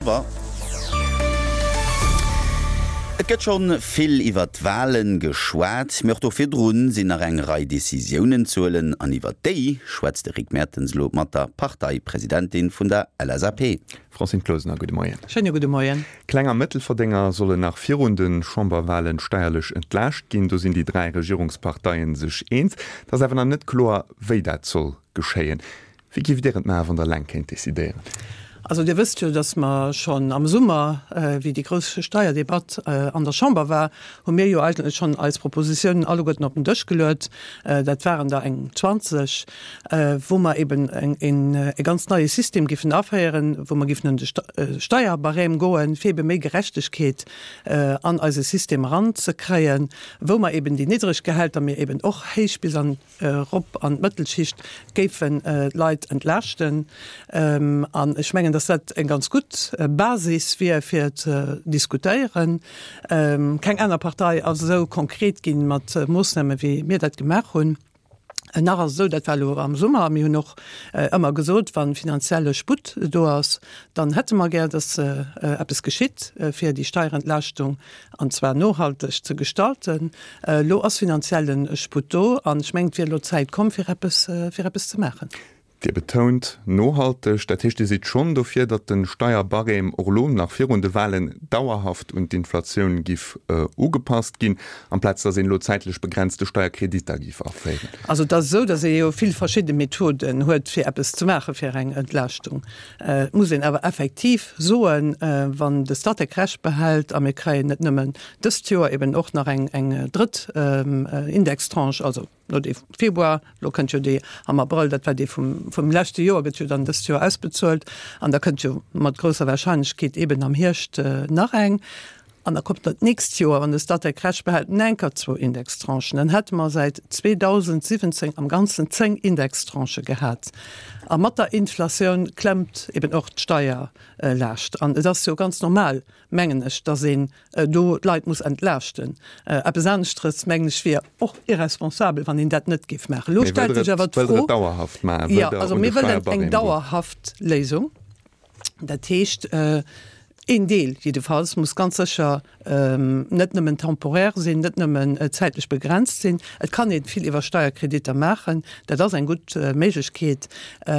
Et gëtt schonn vill iwwer d'Walen geschwat, mee och do virdrun sinn nach eng Rei Decisiounen ze huelen an iwwer déi schwätzt de Rick Mertens elo mat der Parteipresidentin vun der LSAP. Francine Closener, gudde Moien. Schéine gudde Moien. Kleng a Mëttelverdénger sollen nach virun de Chamberwalen steierlech entlaascht ginn. Do sinn déi 3 Regierungsparteien sech eens. Et ass awer nach net kloer, wéi dat soll geschéien. Wéi géift Dir et maachen, wann Der eleng kéint decidéieren? Also Dir wësst jo, datt mer schonn am Summer, wéi déi grouss Steierdebatt an der Chamber war, hu mir jo eigentlech schonn eis Propositionen alleguerten op den Dësch geluet. Dat waren der eng 20, wou mer eben e ganz neie System giffen aféieren, wou mer giffen un de Steierbarème goen, fir ebe méi Gerechtegkeet an eise System eranzekréien, wou mer eben déi niddreg Gehälter, mee eben och héich bis an erop an d'Mëttelschicht géifen d'Leit entlaaschten. An ech mengen, datt dat eng ganz gutt Basis wier, fir ze diskutéieren. Keng aner Partei ass esou konkret gi mat Moossname wéi mir dat gemaach hunn. Nach ass et esou, dat war elo am Summer, a mir hunn och ëmmer gesot, wa finanzielle Sputt do ass, dann hätte mer gär, datt eppes geschitt, fir déi Steierentlaaschtung an zwar nohalteg ze gestalten. Elo ass finanzielle Sputt do an ech mengen, et wier elo d'Zäit komm, fir eppes, fir eppes ze maachen. Dir betount nohalteg. Dat heescht, Dir sidd schonn dofir, datt de Steierbarème och elo nach virun de Wahlen dauerhaft un d'Inflatioun giff ugepasst ginn, amplaz datt een elo zäitlech begrenzte Steierkreditter giff aféieren? Also et ass esou, datt ee jo vill verschidde Methoden huet, fir eppes ze maachen, fir eng Entlaaschtung. Et muss een awer effektiv soen, wann de Statec Recht behält a mir kréien net nëmmen dëst Joer eben och nach eng drëtt Indextranche, also no dee Februar, elo kënnt jo déi am Abrëll, dat war déi vum leschte Joer, gëtt jo dann dëst Joer ausbezuelt an da kënnt jo mat grousser Wahrscheinlechkeet eben am Hierscht nach eng. An da kommt dat nächst Joer, wann de Statec Recht behält, enker zwou Indextranchen. Dann hätte mer säit 2017 am Ganzen 10 Indextranchë gehat. A mat der Inflatioun klemmt eben och d'Steierlaascht. An et ass jo ganz normal, mengen ech, dass een do d'Leit muss entlaaschten. Eppes aneschteres, mengen ech, wier och irresponsabel, wann een dat net géif maachen. Elo stellt sech awer d'Fro. Jo, also mir wëllen eng dauerhaft Léisung. Dat heescht, een Deel jiddefalls muss ganz sécher net nëmmen temporaire sinn, net nëmmen zäitlech begrenzt sinn. Et kann ee vill iwwer Steierkreditter maachen, dat ass eng gutt Méiglechkeet.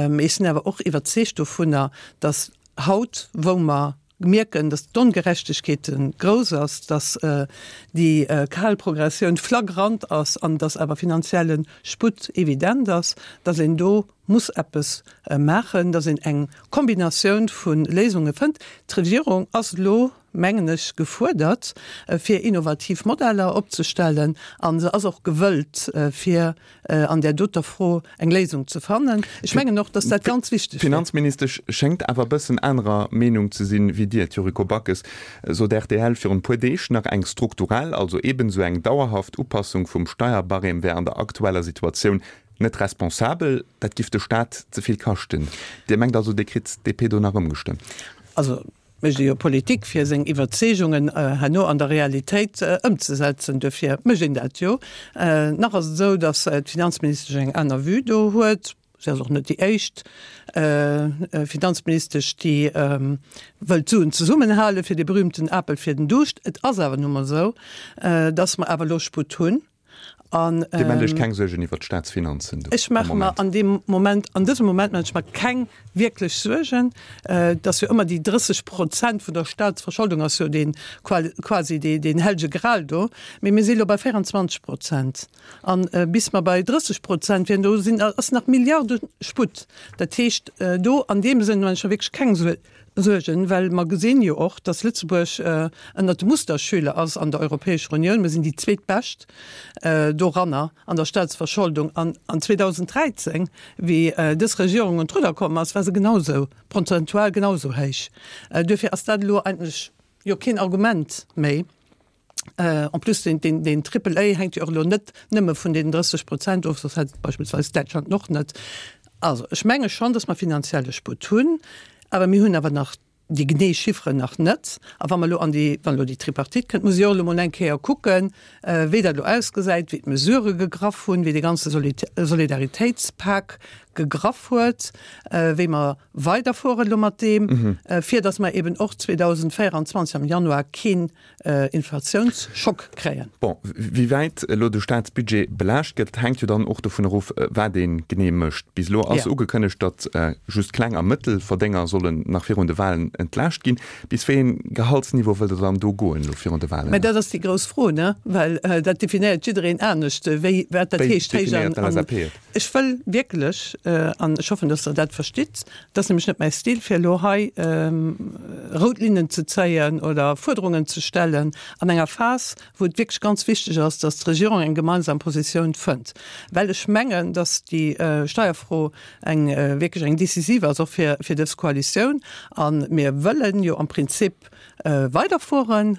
Mee ech sinn awer och iwwerzeegt dovunner, datt haut, wou mer mierken, datt d'Ongerechtegkeet grouss ass, datt déi kal Progressioun flagrant ass an datt awer finanzielle Sputt evident ass, datt een do muss eppes maachen, datt een eng Kombinatioun vu Léisunge fënnt. D'Regierung ass elo, mengen ech, gefuerdert, fir innovativ Modeller opzestellen a se ass och gewëllt, fir an där doter Fro eng Léisung ze fannen. Ech mengen och, datt dat ganz wichteg wier. D'Finanzministesch schéngt awer e bëssen anerer Meenung ze sinn wéi Dir. D'Yuriko Backes sot rtl virun e puer Deeg nach, eng strukturell, also eben esou eng dauerhaft Upassung vum Steierbarème wär an der aktueller Situatioun Net responsabel, dat giff de Staat ze vill kaschten. Dir mengt also, Dir kritt d'DP do nach ëmgestëmmt? Also mécht ee jo Politik, fir seng Iwwerzeegungen herno an der Realitéit ëmzesetzen. Duerfir mécht een dat jo. Nach ass et esou, datt d'Finanzministesch eng aner Vue do huet. Si ass och net déi éischt Finanzministesch, déi wëllt d'Suen zesummenhalen, fir dee berühmten Apel fir den Duuscht. Et ass awer nu mol esou, datt mer awer elo Sputt hunn. An, Dir maacht Iech keng Suergen iwwert d'Staatsfinanzen do Ech maache mer an deem Moment, an dësem Moment maache ech mer keng wierklech Suergen. Et ass jo ëmmer déi 30 Prozent vun der Staatsverscholdung ass jo dee quasi deen hellege Gral do. Mee mir si elo bei 24 Prozent. An bis mer bei 30 Prozent wieren, do sinn, ass nach Milliarde Sputt. Dat heescht, do an deem Sënn maache ech mer wierklech keng Suergen, well mer gesinn jo och, dass Lëtzebuerg ënnert de Musterschüler ass an der Europäescher Unioun. Mir sinn déi zweetbescht doranner an der Staatsverscholdung. An an 2013, wéi dës Regierung un d'Rudder komm ass, war se genausou, prozentual genausou héich. Duerfir ass dat elo eigentlech jo keen Argument méi. En plus, deen, deen, deen Triple A hänkt jo och elo net nëmme vun deenen 30 Prozent of, soss hätt beispillsweis Däitschland en och net. Also ech menge schonn, datt mer finanzielle Sputt hunn, awer mir hunn awer nach. déi genee Chifferen nach net. A wa mer elo an déi, wann elo déi Tripartite kënnt, muss ech och elo mol eng Kéier kucken, wéi dat elo ausgesäit, wéi d'Mesurë gegraff hunn, wéi dee ganze Solidaritéitspak gegraff huet, wéi mer weiderfueren elo mat deem, fir datt mer eben och 2024 am Januar keen Inflatiounsschock kréien. Bon, wéi wäit elo de Staatsbudget belaascht gëtt, hänkt jo dann och dovun erof, wat ee genee mécht. Bis elo ass ugekënnegt, datt just Kleng a Mëttelverdénger sollen nach virun de Walen entlaascht ginn. Bis wéi een Gehaltsniveau wëllt Der dann do goen elo virun de Walen? Mä dat ass déi grouss Fro, ne? Well dat definéiert jiddereen anescht, wéi, wat dat heescht. Wéi definéiert d'LSAP et? Ech wëll wierklech, an ech hoffen, datt Der dat verstitt, et ass nämlech net mäi Stil, fir elo hei rout Linnen ze zéien oder Fuerderungen ze stellen an enger Phas, wou et wierklech ganz wichteg ass, datt d'Regierung eng gemeinsam Positioun fënnt, well ech mengen, datt déi Steierfro eng wierklech eng decisiv ass, och fir dës Koalitioun. A mir wëllen jo am Prinzip weiderfueren.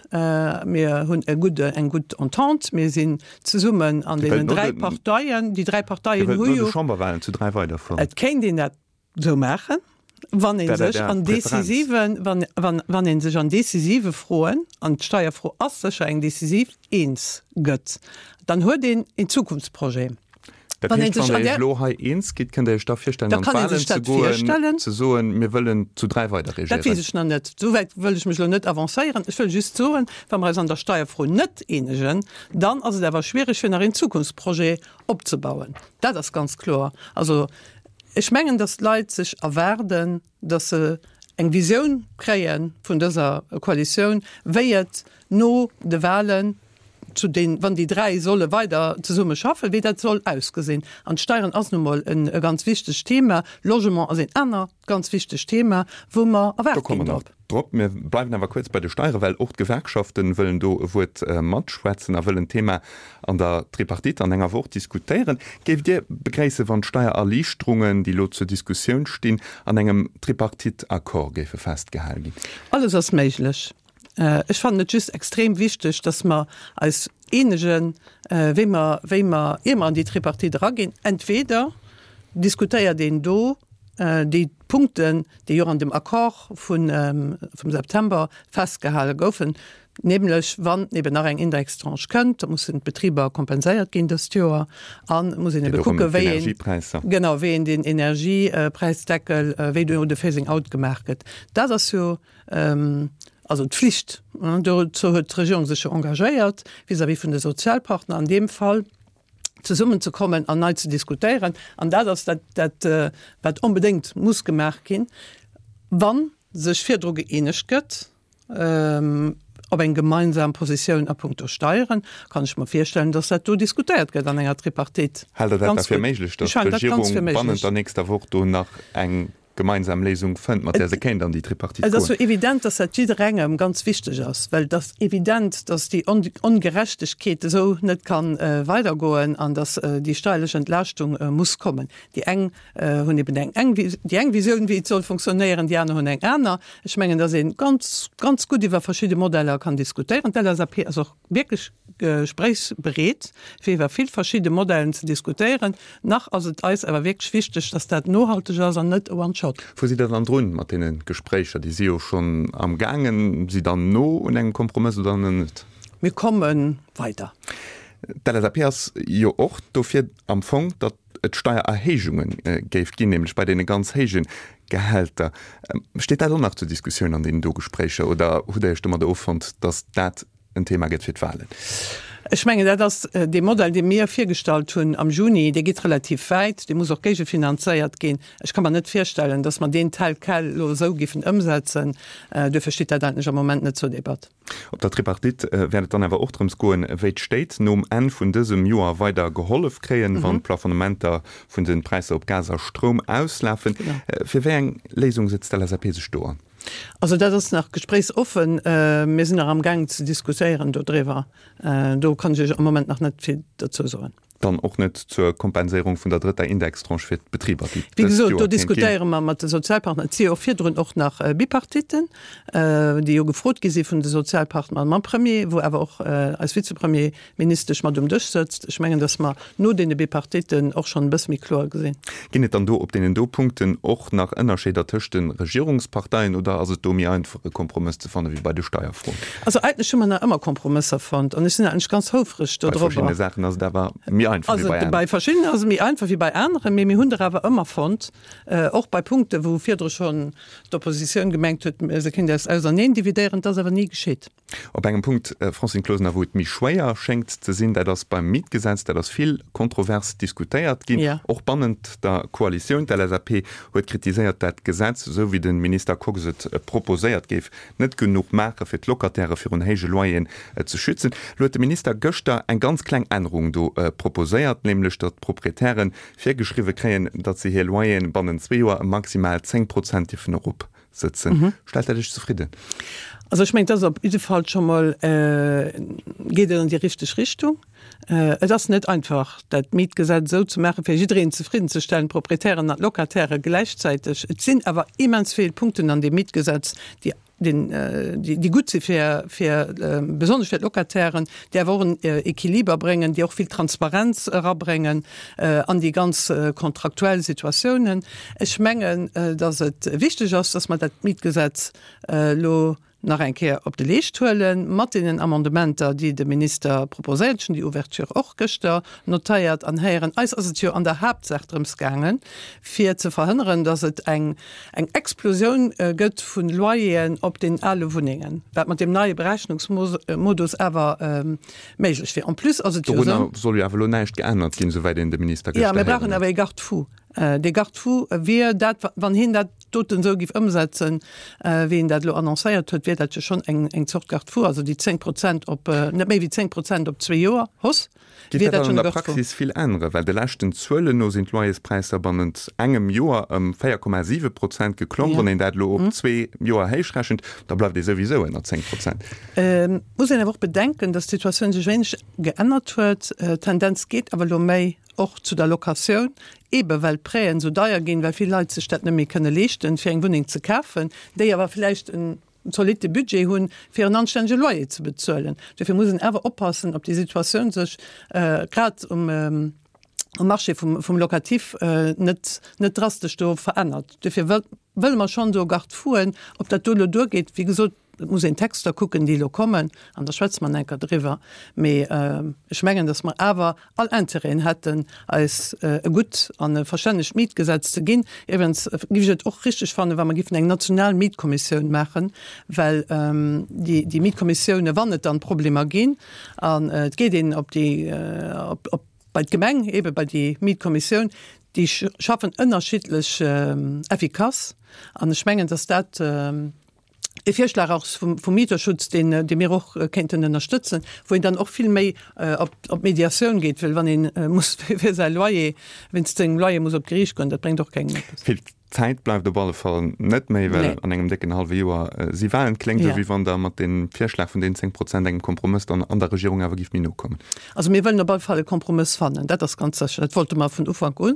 Mir hunn e gudde, eng gutt Entente. Mir sinn zesummen an deenen 3 Parteien. Déi 3 Parteien hu jo. Dir wëllt no de Chamberwahlen zu 3 weiderfueren? Et kéint een dat esou maachen, wann ee sech an decisiven, wann, wann, wann ee sech an decisive Froen, an d'Steierfro ass sécher eng decisiv, eens gëtt. Dann huet een een Zukunftsprojet. Dat heescht, wann Der Iech elo hei eens gitt, kënnt Der Iech da virstellen, an d'Wahlen ze goen, ze soen, mir wëllen zu 3 weider regéieren? Dat weess ech nach net. Esou wäit wëll ech mech elo net avancéieren. Ech wëll just soen, wa mer eis an der Steierfro net eenegen, dann ass et awer schwierig, fir nach een Zukunftsprojet opzebauen. Dat ass ganz kloer. Also, ech mengen, datt d'Leit sech erwaarden, datt se eng Visioun kréie vun dëser Koalitioun, wéi et no de Wahlen zu den, wann déi 3 solle weider zesumme schaffen, wéi dat soll ausgesinn. An d'Steieren ass nu mol e ganz wichtegt Thema, Logement ass een anert ganz wichtegt Thema, wou mer erwaart ginn drop. Drop. Mir bleiwen awer kuerz bei de Steieren, well och d'Gewerkschaften wëllen do e Wuert matschwätzen a wëllen d'Thema an der Tripartite an enger Woch diskutéieren. Géift Dir begréissen, wann d'Steiererliichterungen, déi elo zur Diskussioun stinn, an engem Tripartite-Accord géife festgehal ginn? Alles ass méiglech. Ech fannen et just extrem wichteg, dass mer eis eenegen, wéi mer, wéi mer, ier mer an déi Tripartite eraginn, entweder diskutéiert een do déi Punkten, déi och an dem Accord vun, vum September festgehale goufen, nämlech wann eben nach eng Indextranche kënnt, da mussen d'Betriber kompenséiert ginn dëst Joer an et muss een ebe kucken, wéi een, genau, wéi een den Energiepräisdeckel, wéi do de Phasing out gemaach gëtt. Dat ass jo Also d'Flicht, dozou huet d'Regierung sech jo engagéiert vis-à-vis vun de Sozialpartner an deem Fall, zesummenzekommen an nei ze diskutéieren. An dat ass dat, dat wat onbedéngt muss gemaach ginn, wa sech virdru gëeenegt gëtt op eng gemeinsam Positioun a puncto Steieren, kann ech mer virstellen, datt dat do diskutéiert gëtt an enger Tripartite. Haalt Der dat da fir méiglech, datt d'Regierung bannent der nächster Woch do nach eng gemeinsam Léisung fënnt, mat där se kéint an déi Tripartite goen. Et ass jo evident, dass dat jidderengem ganz wichteg ass, well et ass evident, dass déi Ongerechtegkeet esou net ka weidergoen an dass déi steierlech Entlaaschtung muss kommen. Déi eng hunn eben eng eng déi eng Visioun, wéi et soll funktionéieren, déi aner hunn eng aner. Ech mengen, dass ee ganz, ganz gutt iwwer verschidde Modeller kann diskutéieren. D'LSAP ass och wierklech gespréichsbereet, fir iwwer vill verschidde Modellen ze diskutéieren. Nach ass et eis awer wierklech wichteg, dass dat nohalteg ass an net e One-Shot. Wou sidd Der dann drun mat deene Gespréicher? Déi si jo schonn am gaangen. Sidd Der no un engem Kompromëss oder nach net? Mir komme weider. D'LSAP ass jo och dofir am Fong, datt et Steiererhéijunge géif ginn, nämlech bei deene ganz héije Gehälter. Steet dat och nach zur Diskussioun an deenen do Gespréicher oder hutt Der Iech domadder offonnt, datt dat en Thema gëtt fir d'Wahlen. Ech mengen, dat ass dee Modell, dee mir virgestallt hunn am Juni, dee geet relativ wäit, dee muss och géigefinanzéiert ginn. Ech ka mer net virstellen, datt mer deen tel quel elo esou géifen ëmsetzen. Duerfir steet dat eigentlech am Moment net zur Debatt. Op der Tripartite wäert et dann awer och drëms goen, wéi d'Stéit nom Enn vun dësem Joer weider gehollef kréien, wann d'Plafonnementer vun de Präisser op Gas a Stroum auslafen. Fir wéi eng Léisung setzt d'LSAP sech do an? Also dat ass nach gespréichsoffen. Mir sinn nach amgaangen ze diskutéieren dodriwwer. Do kann ech Iech am Moment nach net vill dozou soen. Dann och net zur Kompenséierung vun der drëtter Indextranche fir d'Betriber, déi Wéi dëst gesot, do Joer kéint ginn. diskutéiere mer mat de Sozialpartner. Et si jo och virdrun och nach Bipartitten, déi jo gefrot gi si vun de Sozialpartner mam Premier, wou awer och eis Vizepremierministesch Ministesch mat um Dësch sëtzt. Ech mengen, datt mer no deene Bipartitten och schonn e bësse méi kloer gesinn. Ginn et dann do op deenen do Punkten och nach Ënnerscheeder tëscht de Regierungsparteien oder ass et do méi einfach e Kompromëss ze fanne wéi bei de Steierfroen? Also eigentlech hu mer nach ëmmer Kompromësser fonnt an ech sinn eigentlech ganz houfreg dodrobber. Bei verschiddene Saachen ass et awer méi einfach wéi bei aneren. Bei verschiddenen ass et méi einfach wéi bei aneren, mee mir hunn der awer ëmmer fonnt, och bei Punkten, wou virdru schonn d'Oppositioun gemengt huet, se kéint eis auserneen dividéieren. Dat ass awer ni geschitt. Op engem Punkt, Francine Closener, wou et méi schwéier schéngt ze sinn, dat ass beim Mietgesetz. Dat ass vill kontrovers diskutéiert ginn, och bannent der Koalitioun. D'LSAP huet kritiséiert, dat d'Gesetz, esou wéi de Minister Kox et proposéiert, géif net genuch maache fir d'Locataire virun héije Loyeren ze schützen. Elo huet de Minister gëschter eng ganz kleng Ännerung do proposéiert, nämlech datt d'Proprietäre virgeschriwwe kréien, datt se hir Loyeren bannent zwee Joer ëm maximal 10 Prozent dierfen erop sëtzen. Stellt dat Iech zefridden? Also ech mengen, et ass op jidde Fall scho mol, geet et an déi richteg Richtung. Et ass net einfach, dat Mietgesetz esou ze maachen, fir jiddereen zefriddenzestellen, d'Proprietären an d'Locataire gläichzäiteg. Et sinn awer immens vill Punkten an deem Mietgesetz, déi déi gutt si fir, fir besonnesch fir d'Locatairen, déi awer och en Equiliber bréngen, déi och vill Transparenz erabréngen an déi ganz kontraktuell Situatiounen. Ech mengen, datt et wichteg ass, datt mer dat Mietgesetz elo nach eng Kéier op de Leescht huelen, mat deenen Amendementer, déi de Minister proposéiert. Ech hunn déi Ouverture och gëschter notéiert an héieren. Eis ass et jo an der Haaptsaach drëms gaangen, fir ze verhënneren, datt et eng eng Explosioun gëtt vu Loyeren op den ale Wunnengen, wat mat deem neie Berechnungsmodus awer méiglech wier. En plus ass et jo esou. Dorunner soll jo awer elo näischt geännert ginn, souwäit een de Minister gëschter héieren huet. Jo, mir brauchen awer ee Garde-fou. Dee Garde-fou wier dat, wann hien dat doten esou géif ëmsetzen, wéi en dat elo annoncéiert huet, wier dat jo schonn eng Zort Garde-fou, also déi 10 Prozent op, net méi wéi 10 Prozent op zwee Joer Hausse. Geet dat dann an der Praxis vill änneren? Well de leschten Zuelen no sinn d'Loyerspräisser bannent engem Joer ëm 4,7 Prozent geklomm. Wann een dat elo op zwee Joer héichrechent, da bleift ee souwisou ënner 10 Prozent. Et muss een awer och bedenken, datt d'Situatioun sech wéineg geännert huet. D'Tendenz geet awer elo méi och zu der Locatioun, eebe well d'Prêten esou deier ginn, well vill Leit sech dat net méi kënne leeschten, fir eng Wunneng ze kafen, déi awer vläicht en zolitte Budget hunn, fir en anstännege Loyer ze bezuelen. Dofir muss een awer oppassen, ob déi Situatioun sech grad um Marché vum Locatif net net drastesch do verännert. Dofir wëlle mer schonn do Garde-fouen. Ob dat do elo duergeet, wéi gesot, et muss een d'Texter kucken, déi elo kommen, an da schwätze mer nach eng Kéier driwwer. Mee ech mengen, datt mer awer all Intérêten hätten, eis e gutt an e verstännegt Mietgesetz ze ginn. Iwwregens géif ech et och richteg fannen, wa mer géifen eng national Mietkommissioun maachen, well déi Mietkommissioune, wann et dann Problemer ginn, an et geet een op déi, op bei d'Gemeng, eebe bei déi Mietkommissioun, déi schaffen ënnerschiddlech effikass. An ech mengen, dass dat, E Virschlag och vum Mieterschutz, deen, dee mir och kéinten ënnerstëtzen, wou een dann och vill méi op, op d'Mediatioun geet, well wann ee muss fir säi Loyer, wéinst sengem Loyer muss op d'Geriicht goen, dat bréngt och kengem eppes. Vill Zäit bleift op alle Fall net méi, well an engem décken hallwe Joer si Wahlen. Kléngt esou, wéi wann Der mat deem Virschlag vun deenen 10 Prozent engem Kompromëss dann an der Regierung awer gift méi no kommen. Also mir wëllen op alle Fall e Kompromëss fannen, dat ass ganz sécher. Dat wollte mer vun Ufank un.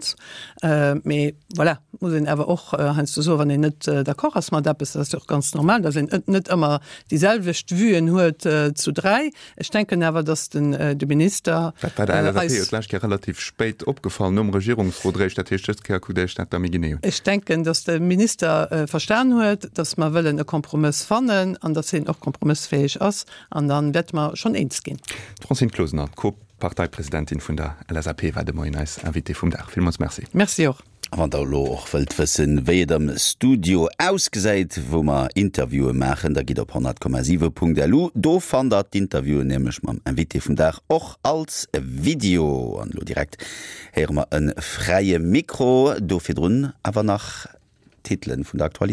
Mee voilà, muss een awer och heiansdo soen, wann een net d'accord ass mat eppes, dat ass jo och ganz normal, datt een net ëmmer déi selwecht Vuen huet zu dräi. Ech denken awer, datt den de Minister eis. Dat war der LSAP jo d'lescht Kéier relativ spéit opgefall, nom Regierungsrot eréischt. Dat heescht, dës Kéier kuckt Dir Iech dat da méi genee un. Ech denken, datt de Minister verstan huet, datt mer wëllen e Kompromëss fannen an datt hien och kompromëssfäeg ass. An da wäerte mer schonn eens ginn. D'Francine Closener, d'Co-Parteipresidentin vun der LSAP, war de Moien eis Invitée vum Dag. Villmools Merci. Merci och. A wann der elo och wëllt wëssen, wéi et am Studio ausgesäit, wou mer Interviewen maachen, da gitt op 100,7.lu. Do fannt der d'Interviewen nämlech mam Invité vum Dag och als Video. An elo direkt héiere mer e fräie Mikro. Do virdrun awer nach d'Titelen vun der Aktualitéit.